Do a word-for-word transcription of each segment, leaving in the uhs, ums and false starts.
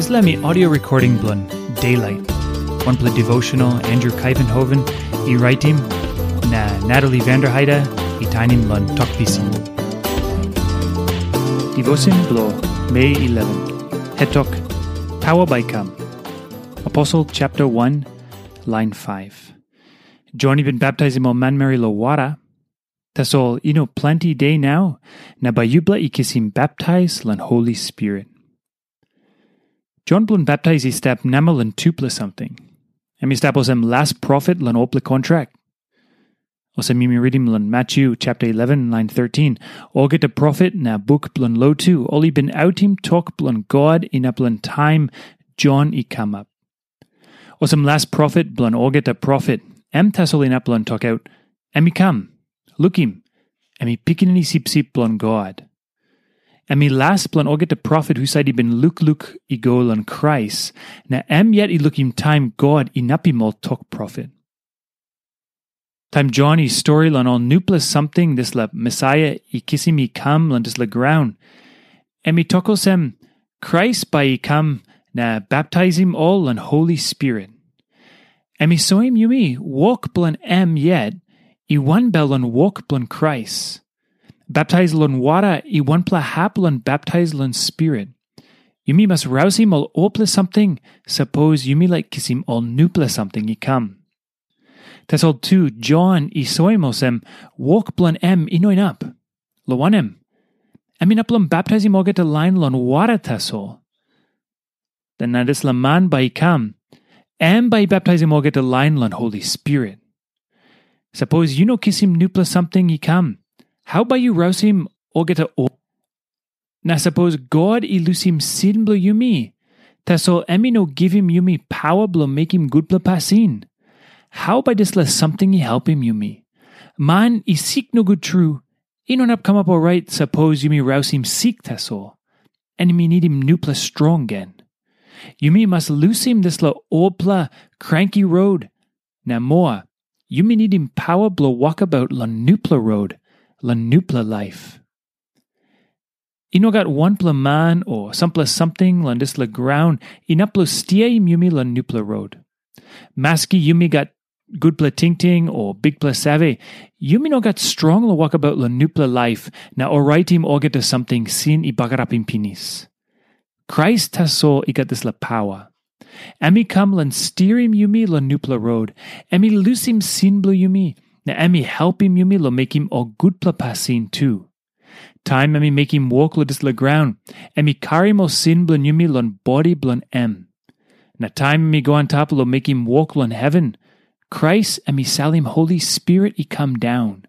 Dispela mi audio recording bilong Daylight, wanpela devotional Andrew Kaivenhoven i raitim, na Natalie Vanderheide i tainim long Tok Pisin. Devotion bilong Mei eleven. Hetok, Pawa bai kam. Aposel chapter one, line five. Jon i bin baptaisim ol manmeri long wara, tasol i no planti de nau, na bai yupela i kisim baptais long Holi Spirit. Jon bilong baptais i stap namel long tupela samting. Em i stap olsem las profet long olpela kontrak. Olsem yumi ritim long Matyu chapter eleven, line thirteen, olgeta profet na buk bilong lotu, ol i bin autim tok bilong God inap long taim Jon i kamap. Olsem las profet bilong olgeta profet, em tasol inap long tokaut, em i kam. Lukim, em i Pikinini Sipsip bilong God. Em i las bilong olgeta profet husat i bin lukluk i go long Krais, na em yet i lukim taim God inapim ol tok profet. Taim Jon i stori long ol nupela samting dispela Mesaia i kisim i kam long dispela graun, em i tok olsem, Krais bai i kam na baptaisim ol long Holi Spirit. Em i soim yumi wok bilong em yet i wanbel long wok bilong Krais. Baptais long wara i wanpela hap long baptais long Spirit. Yumi mas rausim ol olpela samting, sapos yumi laik kisim ol nupela samting i kam. Tasol tu, Jon i soim olsem, wok bilong em i no inap. Long wanem, em inap long baptaisim olgeta lain long wara tasol. Na dispela man bai i kam, em bai i baptaisim olgeta lain long Holi Spirit. Sapos yu no kisim nupela samting i kam, hau bai yu rausim olgeta o? Na sapos God i lusim sin bilong yumi, tasol em i no givim yumi pawa bilong mekim gutpela pasin, hau bai dispela samting i helpim yumi? Man i sik nogut tru, i no inap kamap orait sapos yumi rausim sik tasol, em i nidim nupela strong gen. Yumi mas lusim dispela olpela kranki rot, na moa, yumi nidim pawa bilong wokabaut long nupela rot, long nupela laip. I no gat wanpela man o sampela samting long dispela graun inap long stiaim yumi long nupela rot. Maski yumi gat gutpela tingting o bikpela save, yumi no gat strong long wokabaut long nupela laip na oraitim olgeta samting sin i bagarapim pinis. Krais tasol i gat dispela pawa. Em i kam long stirim yumi long nupela rot. Em i lusim sin bilong yumi, na em i helpim yumi long mekim ol gutpela pasin tu. Taim em i mekim wok long dispela graun, em i karim ol sin bilong yumi long bodi bilong em. Na taim em i go antap long mekim wok long heven, Krais em i salim Holi Spirit i kam daun.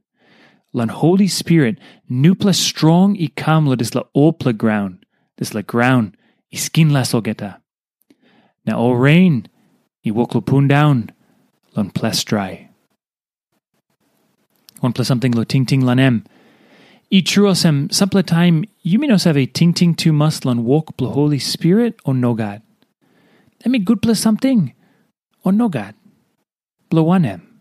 Long Holi Spirit, nupela strong i kam long dispela olpela graun, dispela graun i skinlas olgeta. Na ol ren i wok long pundaun long ples drai. Wanpela samting long tingting long em. I tru olsem, sampela taim yumi no save tingting tumas long wok bilong Holi Spirit o nogat. Em i gutpela samting o nogat? Bilong wanem?